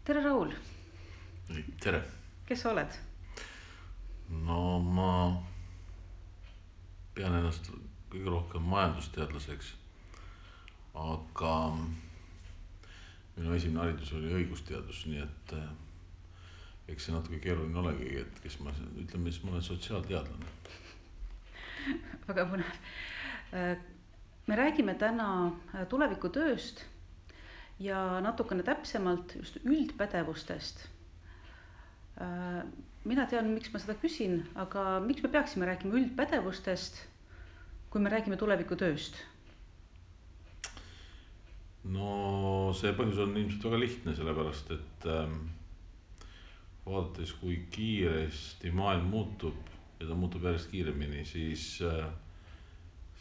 Tere, Raul! Tere! Kes sa oled? No ma pean ennast kõige rohkem majandusteadlaseks, aga minu esimene haridus oli õigusteadus, nii et eks see natuke keeruline olegi, et kes ma, ütleme siis, ma olen sotsiaalteadlane. Väga põnev. Me räägime täna tulevikutööst ja natukene täpsemalt just üldpädevustest. Mina tean, miks ma seda küsin, aga miks me peaksime rääkima üldpädevustest, kui me räägime tulevikutööst? No see põhjus on ilmselt väga lihtne, sellepärast et vaadates, kui kiiresti maailm muutub ja ta muutub järjest kiiremini, siis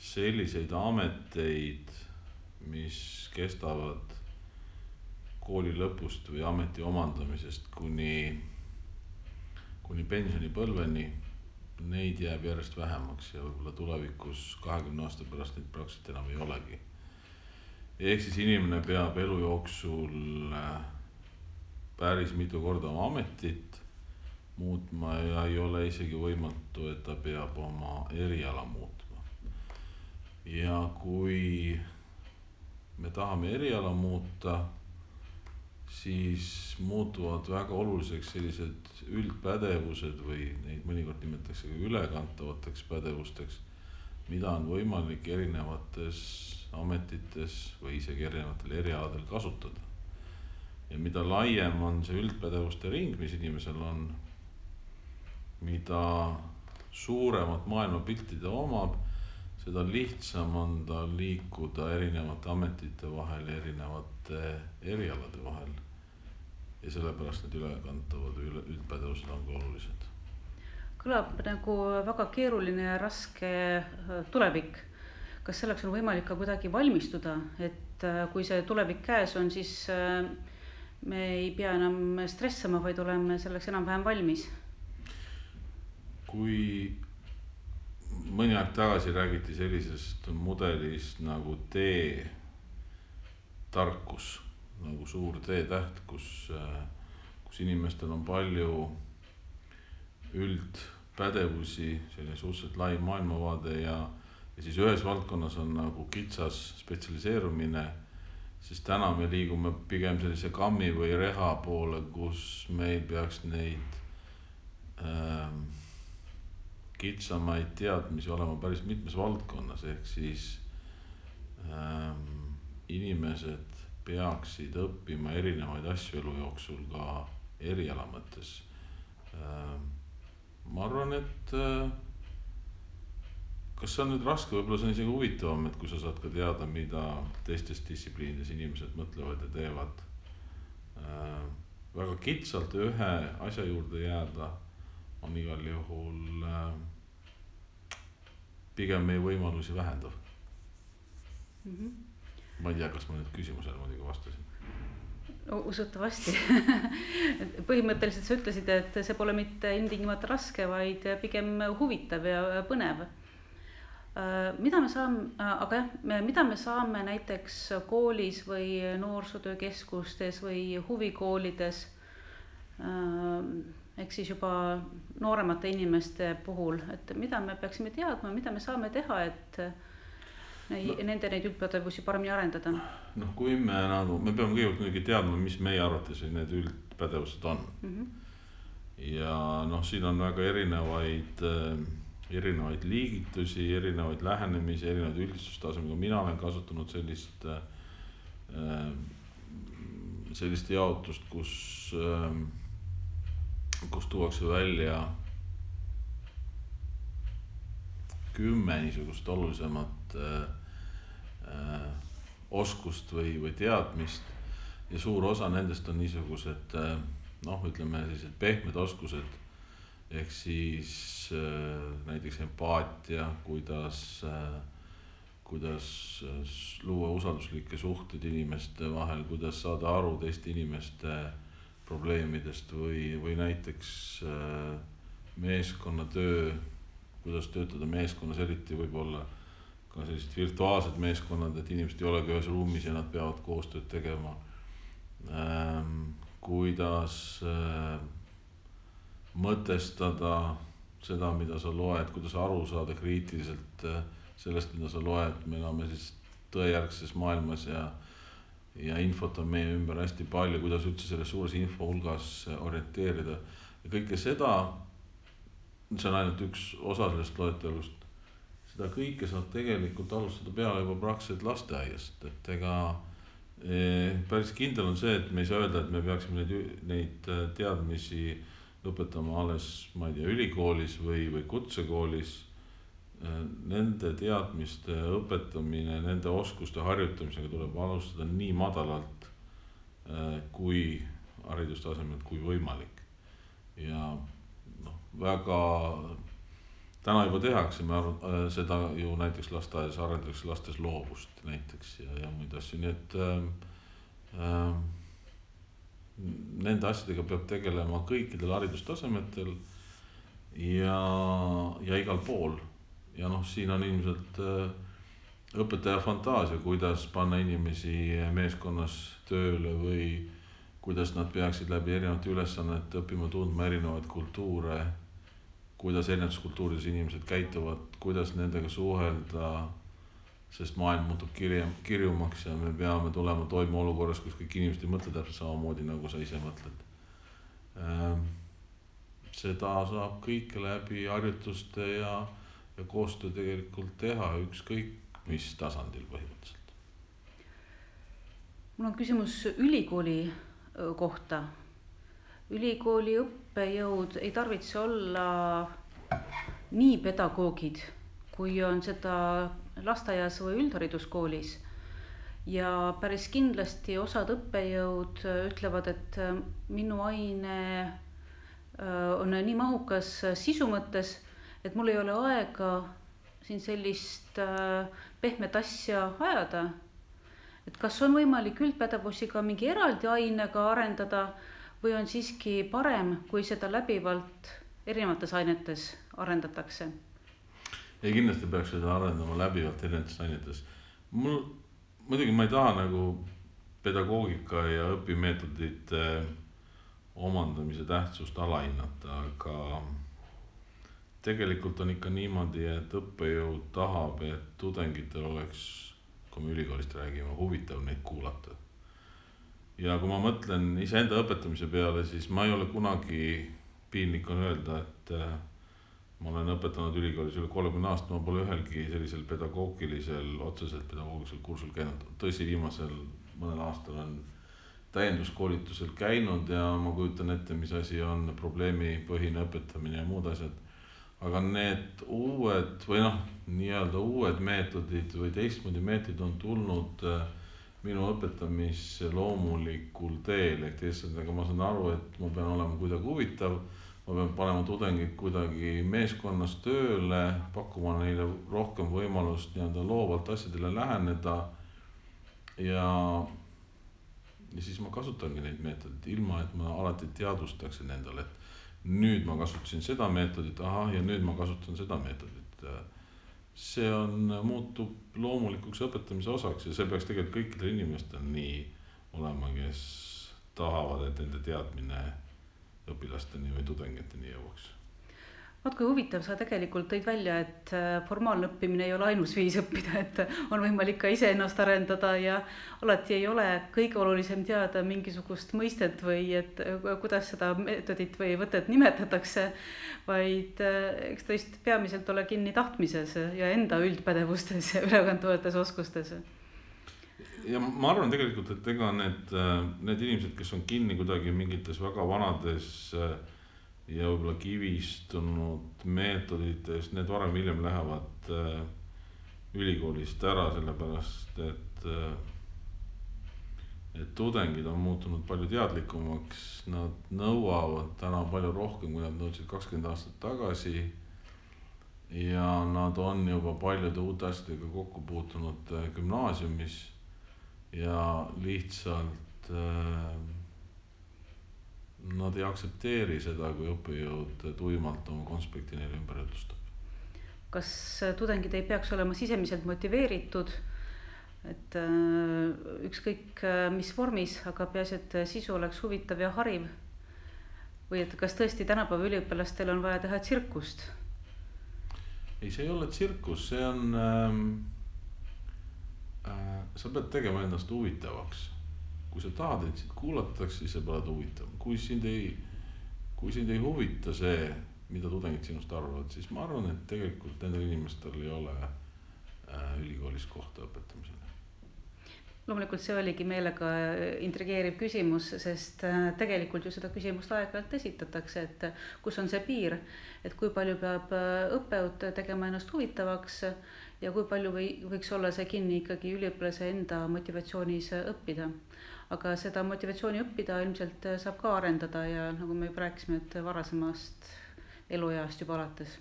selliseid ameteid, mis kestavad kooli lõpust või ameti omandamisest kuni pensionipõlveni, neid jääb järjest vähemaks ja võib-olla tulevikus 20 aasta pärast neid praktiliselt enam ei olegi. Ehk siis inimene peab elu jooksul päris mitu korda oma ametit muutma ja ei ole isegi võimatu, et ta peab oma eriala muutma. Ja kui me tahame eriala muuta, siis muutuvad väga oluliseks sellised üldpädevused või neid mõnikord nimetatakse ka ülekantavateks pädevusteks, mida on võimalik erinevates ametites või isegi erinevatel erialadel kasutada. Ja mida laiem on see üldpädevuste ring, mis inimesel on, mida suuremat maailmapilti ta omab, seda lihtsam on ta liikuda erinevate ametite vahel ja erinevate erialade vahel. Ja sellepärast need ülekantavad üldpädevused on ka olulised. Kõlab nagu väga keeruline ja raske tulevik. Kas selleks on võimalik ka kuidagi valmistuda, et kui see tulevik käes on, siis me ei pea enam stressama, vaid oleme selleks enam-vähem valmis? Kui mõni aeg tagasi räägiti sellisest mudelist nagu T-tarkus, nagu suur T-täht, kus inimestel on palju üldpädevusi, selline suhteliselt lai maailmavaade ja siis ühes valdkonnas on nagu kitsas spetsialiseerumine, siis täna me liigume pigem sellise kammi või reha poole, kus meil peaks neid kitsamaid teadmisi olema päris mitmes valdkonnas, ehk siis inimesed peaksid õppima erinevaid asju elu jooksul ka eriala mõttes. Ma arvan, et kas see on nüüd raske, võib-olla see on isegi huvitavam, et kui sa saad ka teada, mida teistes distsipliinides inimesed mõtlevad ja teevad. Väga kitsalt ühe asja juurde jääda on igal juhul pigem meie võimalusi vähendav. Ma ei tea, kas ma nüüd küsimusele muidugi vastasin. Usutavasti. Põhimõtteliselt sa ütlesid, et see pole mitte ilmtingimata raske, vaid pigem huvitav ja põnev. Mida me saame näiteks koolis või noorsootöökeskustes või huvikoolides, ehk siis juba nooremate inimeste puhul, et mida me peaksime teadma, mida me saame teha, et nende neid üldpädevusi paremini arendada? No kui me peame kõigepealt teadma, mis meie arvates need üldpädevused on. Ja siin on väga erinevaid liigitusi, erinevaid lähenemisi, erinevaid üldistustasemiga. Mina olen kasutanud sellist jaotust, kus tuuakse välja 10 niisugust olulisemat oskust või teadmist ja suur osa nendest on niisugused, ütleme sellised pehmed oskused, ehk siis näiteks empaatia, kuidas luua usalduslikke suhteid inimeste vahel, kuidas saada aru teiste inimeste probleemidest või näiteks meeskonnatöö, kuidas töötada meeskonnas, eriti võib-olla ka sellised virtuaalsed meeskonnad, et inimesed ei olegi ühes ruumis ja nad peavad koostööd tegema. kuidas mõtestada seda, mida sa loed, kuidas aru saada kriitiliselt sellest, mida sa loed. Me elame siis tõejärgses maailmas ja infot on meie ümber hästi palju, kuidas üldse selles suures info hulgas orienteerida. Ja kõike seda, see on ainult üks osa sellest loetelust, seda kõike saab tegelikult alustada peale juba praktiliselt lasteaiast. Et ega päris kindel on see, et me ei saa öelda, et me peaksime neid teadmisi õpetama alles, ma ei tea, ülikoolis või kutsekoolis. Nende teadmiste õpetamine, nende oskuste harjutamisega tuleb alustada nii madalalt kui haridustasemelt kui võimalik. Ja väga täna juba tehakse, seda ju näiteks lasteaias arendatakse lastes loovust näiteks ja muid asju, nii et nende asjadega peab tegelema kõikidel haridustasemetel ja igal pool. Ja siin on ilmselt õpetaja fantaasia, kuidas panna inimesi meeskonnas tööle või kuidas nad peaksid läbi erinevate ülesannete õppima tundma erinevaid kultuure, kuidas erinevates kultuurides inimesed käituvad, kuidas nendega suhelda, sest maailm muutub kirjumaks ja me peame tulema toime olukorras, kus kõik inimesed ei mõtle täpselt samamoodi, nagu sa ise mõtled. Seda saab kõike läbi harjutuste ja koostöö tegelikult teha ükskõik mis tasandil põhimõtteliselt. Mul on küsimus ülikooli kohta. Ülikooli õppejõud ei tarvitse olla nii pedagoogid, kui on seda lasteaias või üldhariduskoolis. Ja päris kindlasti osad õppejõud ütlevad, et minu aine on nii mahukas sisu mõttes, et mul ei ole aega siin sellist pehmet asja ajada. Et kas on võimalik üldpädevusi ka mingi eraldi ainega arendada või on siiski parem, kui seda läbivalt erinevates ainetes arendatakse? Ja kindlasti peaks seda arendama läbivalt erinevates ainetes. Muidugi ma ei taha nagu pedagoogika ja õpimeetodite omandamise tähtsust alahinnata, aga tegelikult on ikka niimoodi, et õppejõud tahab, et tudengitel oleks, kui me ülikoolist räägime, huvitav neid kuulata. Ja kui ma mõtlen iseenda õpetamise peale, siis ma ei ole kunagi, piinlik on öelda, et ma olen õpetanud ülikoolis üle 30 aastat, ma pole ühelgi sellisel otseselt pedagoogilisel kursul käinud. Tõsi, viimasel mõnel aastal on täienduskoolitusel käinud ja ma kujutan ette, mis asi on probleemipõhine õpetamine ja muud asjad. Aga need uued või nii-öelda uued meetodid või teistmoodi meetodid on tulnud minu õpetamisse loomulikul teel. Ehk teisalt, aga ma saan aru, et ma pean olema kuidagi huvitav, ma pean panema tudengid kuidagi meeskonnas tööle, pakkuma neile rohkem võimalust nii-öelda loovalt asjadele läheneda ja siis ma kasutangi neid meetodid, ilma et ma alati teadvustaksin endale, et nüüd ma kasutasin seda meetodit, ja nüüd ma kasutan seda meetodit. See muutub loomulikuks õpetamise osaks ja see peaks tegelikult kõikidel inimestel nii olema, kes tahavad, et nende teadmine õpilasteni või tudengiteni jõuaks. Vaat kui huvitav, sa tegelikult tõid välja, et formaalne õppimine ei ole ainus viis õppida, et on võimalik ka ise ennast arendada ja alati ei ole kõige olulisem teada mingisugust mõistet või et kuidas seda meetodit või võtet nimetatakse, vaid eks tõesti peamiselt ole kinni tahtmises ja enda üldpädevustes ja ülekantavates oskustes. Ja ma arvan tegelikult, et ega need inimesed, kes on kinni kuidagi mingites väga vanades ja võib-olla kivistunud meetodites, need varem hiljem lähevad ülikoolist ära, sellepärast et tudengid on muutunud palju teadlikumaks, nad nõuavad täna palju rohkem, kui nad nõudsid 20 aastat tagasi ja nad on juba paljude uute asjadega kokku puutunud gümnaasiumis ja lihtsalt nad ei aktsepteeri seda, kui õppejõud tuimalt oma konspekti neile ümber jutustab. Kas tudengid ei peaks olema sisemiselt motiveeritud et ükskõik mis vormis, aga peaasi, et sisu oleks huvitav ja hariv. Või et kas tõesti tänapäeva üliõpilastel on vaja teha tsirkust? ei, see ei ole tsirkus, see on sa pead tegema ennast huvitavaks. Kui sa tahad, et sind kuulatakse, siis sa pead huvitav. Kui sind ei huvita see, mida tudengid sinust arvavad, siis ma arvan, et tegelikult nendel inimestel ei ole ülikoolis kohta õpetamisele. Loomulikult see oligi meelega intrigeeriv küsimus, sest tegelikult ju seda küsimust aeg-ajalt esitatakse, et kus on see piir, et kui palju peab õppejõud tegema ennast huvitavaks ja kui palju võiks olla see kinni ikkagi üliõpilase enda motivatsioonis õppida. Aga seda motivatsiooni õppida ilmselt saab ka arendada ja nagu me juba rääkisime, et varasemast elueast juba alates.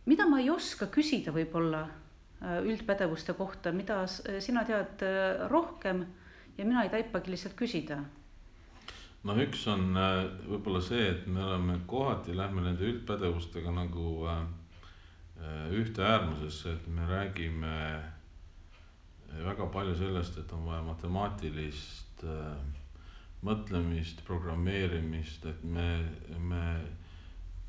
Mida ma ei oska küsida võib-olla üldpädevuste kohta, mida sina tead rohkem ja mina ei taipagi lihtsalt küsida? No üks on võib-olla see, et me oleme kohati, lähme nende üldpädevustega nagu ühte äärmusesse, et me räägime väga palju sellest, et on vaja matemaatilist mõtlemist, programmeerimist, et me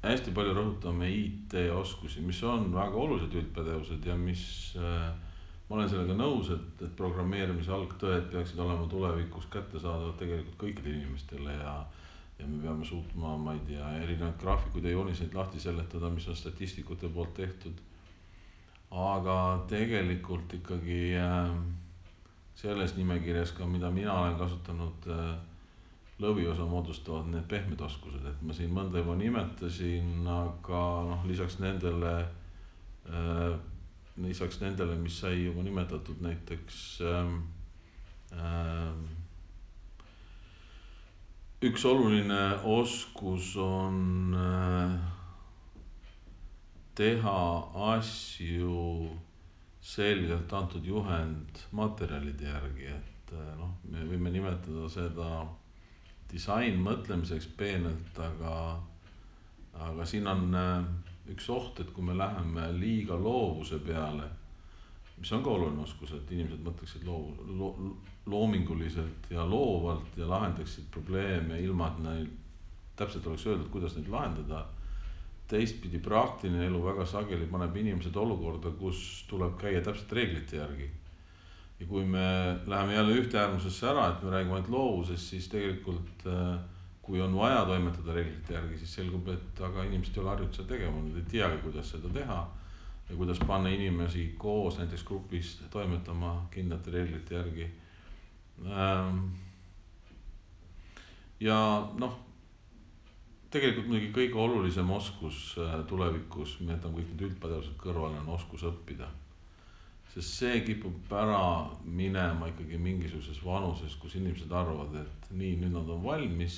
hästi palju rõhutame IT-oskusi, mis on väga olulised üldpädevused ja mis ma olen sellega nõus, et programmeerimise algtõed peaksid olema tulevikus kättesaadavad tegelikult kõikidele inimestele ja me peame suutma, ma ei tea, erinevaid graafikuid ja jooniseid lahti seletada, mis on statistikute poolt tehtud. Aga tegelikult ikkagi selles nimekirjas ka, mida mina olen kasutanud, lõviosa moodustavad need pehmed oskused, et ma siin mõnda juba nimetasin, aga lisaks nendele, mis sai juba nimetatud, näiteks üks oluline oskus on teha asju selgelt antud juhend materjalide järgi, et me võime nimetada seda disain mõtlemiseks peenelt, aga siin on üks oht, et kui me läheme liiga loovuse peale, mis on ka oluline oskus, et inimesed mõtleksid loominguliselt ja loovalt ja lahendaksid probleeme ilma, et neil täpselt oleks öeldud, kuidas neid lahendada. Teistpidi praktiline elu väga sageli paneb inimesed olukorda, kus tuleb käia täpselt reeglite järgi. Ja kui me läheme jälle ühte äärmusesse ära, et me räägime ainult loovusest, siis tegelikult kui on vaja toimetada reeglite järgi, siis selgub, et aga inimesed ei ole harjunud seda tegema, nad ei teagi, kuidas seda teha ja kuidas panna inimesi koos näiteks grupis toimetama kindlate reeglite järgi. Ja tegelikult muidugi kõige olulisem oskus tulevikus, me jätame kõik need üldpädevused kõrvale, on oskus õppida. Sest see kipub ära minema ikkagi mingisuguses vanuses, kus inimesed arvavad, et nii, nüüd nad on valmis,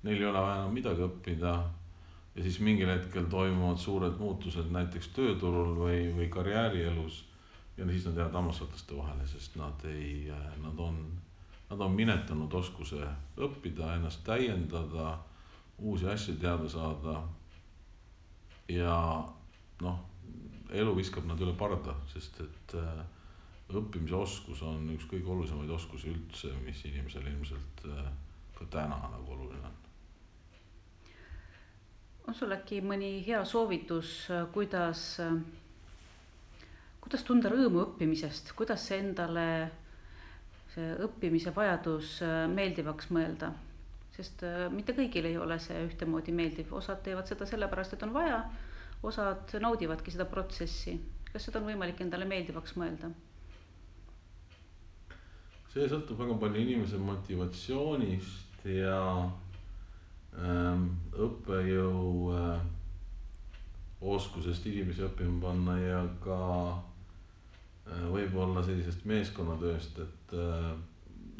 neil ei ole vaja enam midagi õppida ja siis mingil hetkel toimuvad suured muutused näiteks tööturul või karjäärielus ja siis nad jäävad hammasrataste vahele, sest nad on minetanud oskuse õppida, ennast täiendada, uusi asju teada saada ja elu viskab nad üle parda, sest et õppimise oskus on üks kõige olulisemaid oskusi üldse, mis inimesel ilmselt ka täna nagu oluline on. On sul äkki mõni hea soovitus, kuidas tunda rõõmu õppimisest, kuidas endale see õppimise vajadus meeldivaks mõelda? Sest mitte kõigil ei ole see ühtemoodi meeldiv, osad teevad seda sellepärast, et on vaja, osad naudivadki seda protsessi. Kas seda on võimalik endale meeldivaks mõelda? See sõltub väga palju inimese motivatsioonist ja õppejõu oskusest inimesi õppima panna ja ka võib-olla sellisest meeskonnatööst, et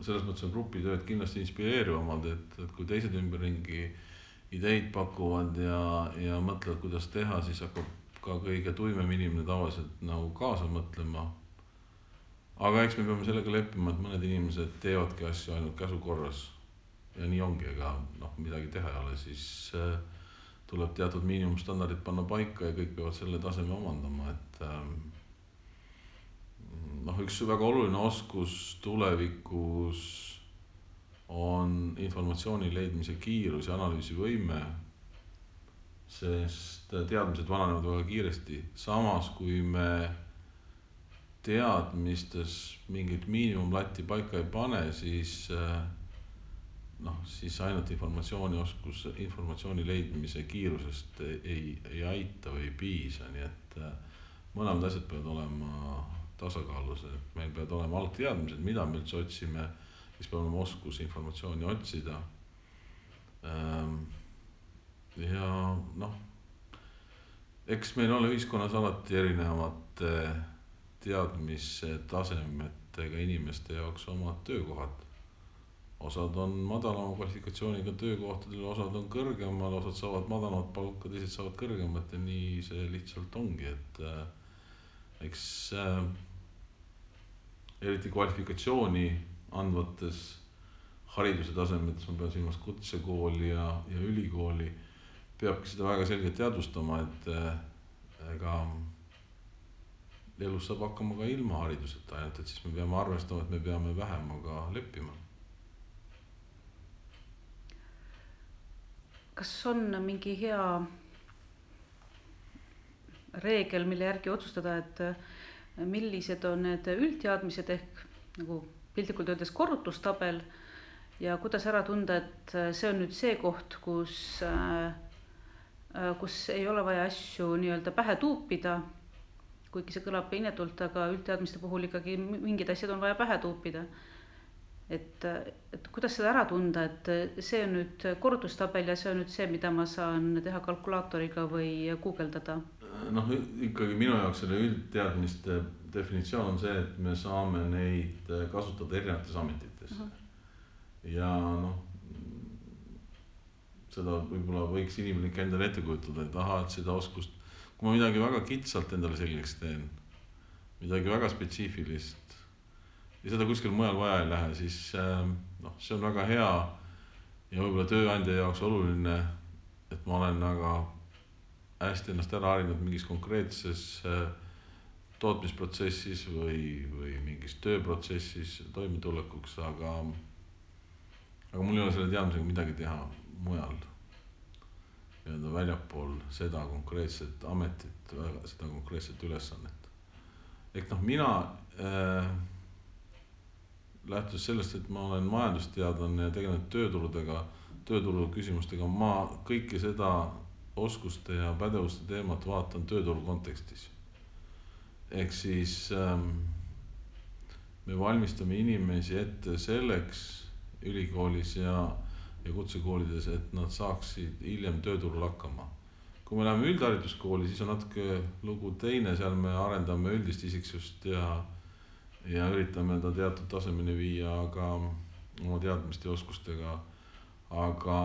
selles mõttes on grupitööd kindlasti inspireerivamad, et kui teised ümberringi ideid pakuvad ja mõtlevad, kuidas teha, siis hakkab ka kõige tuimem inimene tavaliselt nagu kaasa mõtlema. Aga eks me peame sellega leppima, et mõned inimesed teevadki asju ainult käsu korras ja nii ongi, ega midagi teha ei ole, siis tuleb teatud miinimumstandardid panna paika ja kõik peavad selle taseme omandama, et üks väga oluline oskus tulevikus on informatsiooni leidmise kiirus ja analüüsivõime, sest teadmised vananevad väga kiiresti. Samas, kui me teadmistes mingit miinimumlatti paika ei pane, siis ainult informatsiooni leidmise kiirusest ei aita või ei piisa, nii et mõlemad asjad peavad olema tasakaalus, et meil peavad olema algteadmised, mida me üldse otsime, siis peab olema oskus informatsiooni otsida. Ja eks meil ole ühiskonnas alati erinevate teadmistasemetega inimeste jaoks omad töökohad. Osad on madalama kvalifikatsiooniga töökohtadel, osad on kõrgemal, osad saavad madalamat palka, teised saavad kõrgemat ja nii see lihtsalt ongi, et eks eriti kvalifikatsiooni andvates hariduse tasemetes, ma pean silmas kutsekooli ja ülikooli, peabki seda väga selgelt teadvustama, et ega elus saab hakkama ka ilma hariduseta, ainult et siis me peame arvestama, et me peame vähemaga leppima. Kas on mingi hea reegel, mille järgi otsustada, et millised on need üldteadmised ehk nagu piltlikult öeldes korrutustabel ja kuidas ära tunda, et see on nüüd see koht, kus ei ole vaja asju nii-öelda pähe tuupida, kuigi see kõlab inetult, aga üldteadmiste puhul ikkagi mingid asjad on vaja pähe tuupida. Et kuidas seda ära tunda, et see on nüüd korrutustabel ja see on nüüd see, mida ma saan teha kalkulaatoriga või guugeldada? Ikkagi minu jaoks selle üldteadmiste definitsioon on see, et me saame neid kasutada erinevates ametites. Ja seda võib-olla võiks inimene endale ette kujutada, et seda oskust, kui ma midagi väga kitsalt endale selgeks teen, midagi väga spetsiifilist ja seda kuskil mujal vaja ei lähe, siis see on väga hea ja võib-olla tööandja jaoks oluline, et ma olen väga hästi ennast ära harinud mingis konkreetses tootmisprotsessis või mingis tööprotsessis toimetulekuks, aga mul ei ole selle teadmisega midagi teha mujal. Väljapool seda konkreetset ametit, seda konkreetset ülesannet. Ehk mina lähtus sellest, et ma olen majandusteadlane ja tegelenud tööturu küsimustega, ma kõike seda oskuste ja pädevuste teemat vaatan tööturu kontekstis. Ehk siis me valmistame inimesi ette selleks ülikoolis ja kutsekoolides, et nad saaksid hiljem tööturul hakkama. Kui me läheme üldhariduskooli, siis on natuke lugu teine, seal me arendame üldist isiksust ja üritame ta teatud tasemeni viia, aga oma teadmiste ja oskustega. Aga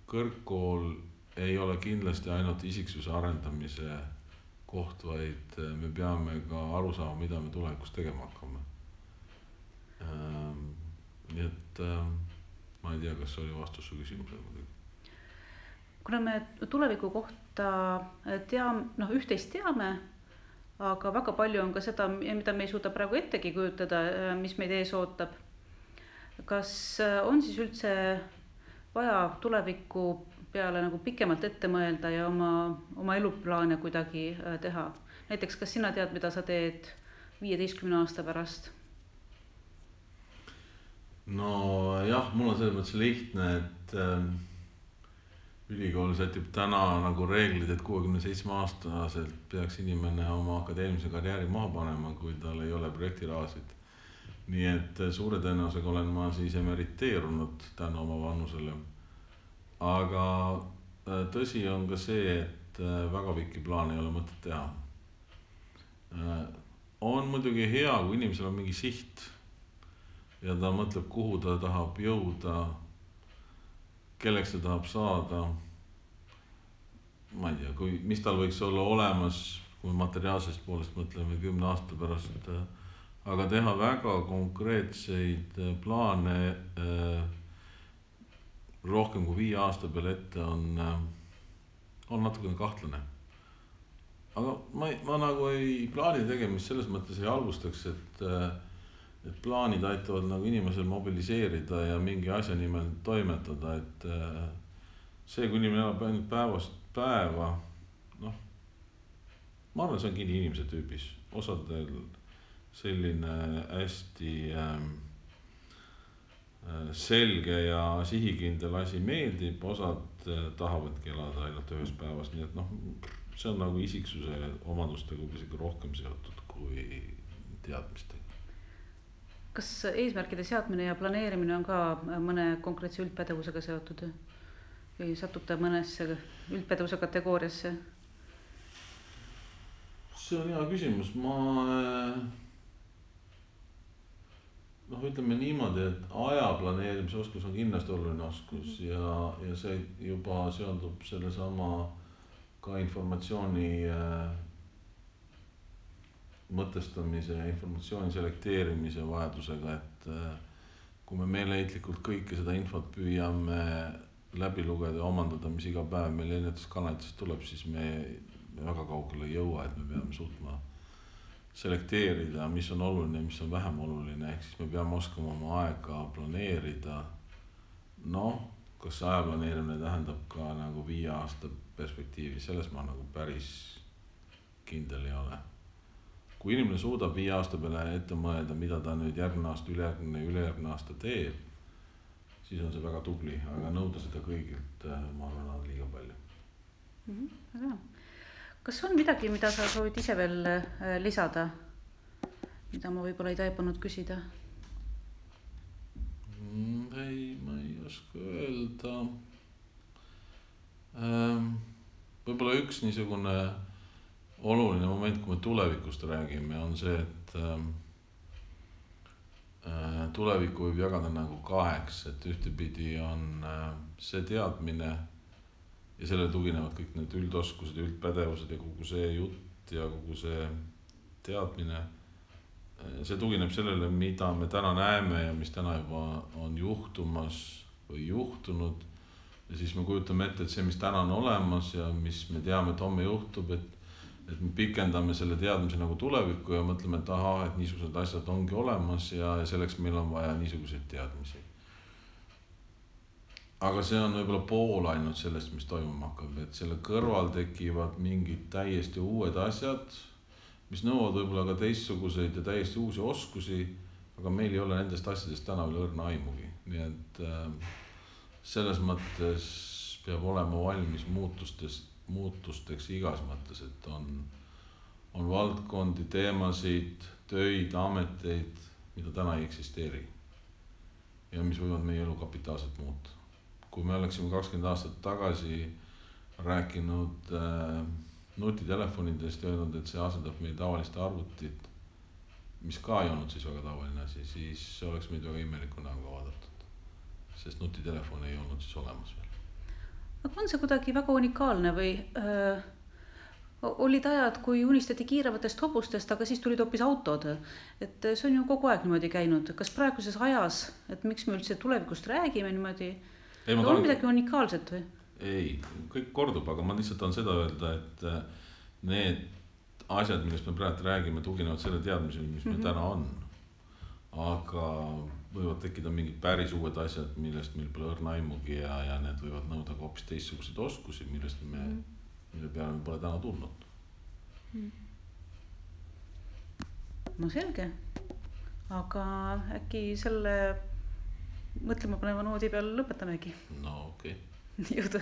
kõrgkool ei ole kindlasti ainult isiksuse arendamise koht, vaid me peame ka aru saama, mida me tulevikus tegema hakkame. Nii et ma ei tea, kas see oli vastus su küsimusele. Kuna me tuleviku kohta üht-teist teame, aga väga palju on ka seda, mida me ei suuda praegu ettegi kujutada, mis meid ees ootab. Kas on siis üldse vaja tuleviku peale nagu pikemalt ette mõelda ja oma eluplaane kuidagi teha? Näiteks, kas sina tead, mida sa teed 15 aasta pärast? Jah, mul on selles mõttes lihtne, et ülikool sätib täna nagu reeglid, et 67-aastaselt peaks inimene oma akadeemilise karjääri maha panema, kui tal ei ole projektirahasid. Nii et suure tõenäosusega olen ma siis emeriteerunud tänu oma vanusele. Aga tõsi on ka see, et väga pikki plaane ei ole mõtet teha. On muidugi hea, kui inimesel on mingi siht ja ta mõtleb, kuhu ta tahab jõuda, kelleks ta tahab saada, ma ei tea, mis tal võiks olla olemas, kui materiaalsest poolest mõtleme 10 aasta pärast, aga teha väga konkreetseid plaane rohkem kui 5 aasta peale ette on natukene kahtlane. aga ma nagu ei plaani tegemist selles mõttes ei halvustaks, et plaanid aitavad nagu inimesel mobiliseerida ja mingi asja nimel toimetada, et see, kui inimene elab ainult päevast päeva, noh, ma arvan, see on kinni inimese tüübis. Osadel selline hästi selge ja sihikindel asi meeldib, osad tahavadki elada ainult ühes päevas, nii et noh, see on nagu isiksuse omadustega isegi rohkem seotud kui teadmistega. Kas eesmärkide seadmine ja planeerimine on ka mõne konkreetse üldpädevusega seotud või satub ta mõnesse üldpädevuse kategooriasse? See on hea küsimus. Ütleme niimoodi, et aja planeerimise oskus on kindlasti oluline oskus ja see juba seondub selle sama ka informatsiooni mõtestamise ja informatsiooni selekteerimise vajadusega, et kui me meeleheitlikult kõike seda infot püüame läbi lugeda ja omandada, mis iga päev meil erinevatest kanalitest tuleb, siis me väga kaugele ei jõua, et me peame suutma selekteerida, mis on oluline ja mis on vähem oluline, ehk siis me peame oskama oma aega planeerida. Kas aja planeerimine tähendab ka nagu 5 aasta perspektiivi, selles ma nagu päris kindel ei ole. Kui inimene suudab 5 aasta peale ette mõelda, mida ta nüüd järgmine aasta, ülejärgmine aasta teeb, siis on see väga tubli, aga nõuda seda kõigilt, ma arvan, on liiga palju. Väga. Kas on midagi, mida sa soovid ise veel lisada, mida ma võib-olla ei taipanud küsida? Ei, ma ei oska öelda. Võib-olla üks niisugune oluline moment, kui me tulevikust räägime, on see, et tulevikku võib jagada nagu 2, et ühtepidi on see teadmine ja sellele tuginevad kõik need üldoskused ja üldpädevused ja kogu see jutt ja kogu see teadmine. See tugineb sellele, mida me täna näeme ja mis täna juba on juhtumas või juhtunud. Ja siis me kujutame ette, et see, mis täna on olemas ja mis me teame, et homme juhtub, et me pikendame selle teadmise nagu tulevikku ja mõtleme, et et niisugused asjad ongi olemas ja selleks meil on vaja niisuguseid teadmisi. Aga see on võib-olla pool ainult sellest, mis toimuma hakkab, et selle kõrval tekivad mingid täiesti uued asjad, mis nõuavad võib-olla ka teistsuguseid ja täiesti uusi oskusi, aga meil ei ole nendest asjadest täna veel õrna aimugi. Nii et selles mõttes peab olema valmis muutusteks igas mõttes, et on valdkondi, teemasid, töid, ameteid, mida täna ei eksisteeri ja mis võivad meie elu kapitaalselt muuta. Kui me oleksime 20 aastat tagasi rääkinud nutitelefonidest ja öelnud, et see asendab meie tavaliste arvutit, mis ka ei olnud siis väga tavaline asi, siis oleks meid väga imeliku näoga vaadatud, sest nutitelefon ei olnud siis olemas veel. Aga on see kuidagi väga unikaalne või olid ajad, kui unistati kiirevatest hobustest, aga siis tulid hoopis autod, et see on ju kogu aeg niimoodi käinud. Kas praeguses ajas, et miks me üldse tulevikust räägime niimoodi, on midagi unikaalset või? Ei, kõik kordub, aga ma lihtsalt on seda öelda, et need asjad, millest me praegu räägime, tuginevad selle teadmisele, mis meil täna on. Aga võivad tekkida mingid päris uued asjad, millest meil pole õrna aimugi ja need võivad nõuda ka hoopis teistsuguseid oskusi, mille peale me pole täna tulnud. No selge, aga äkki selle mõtlema paneva noodi peal lõpetamegi. No okei. Jõudu.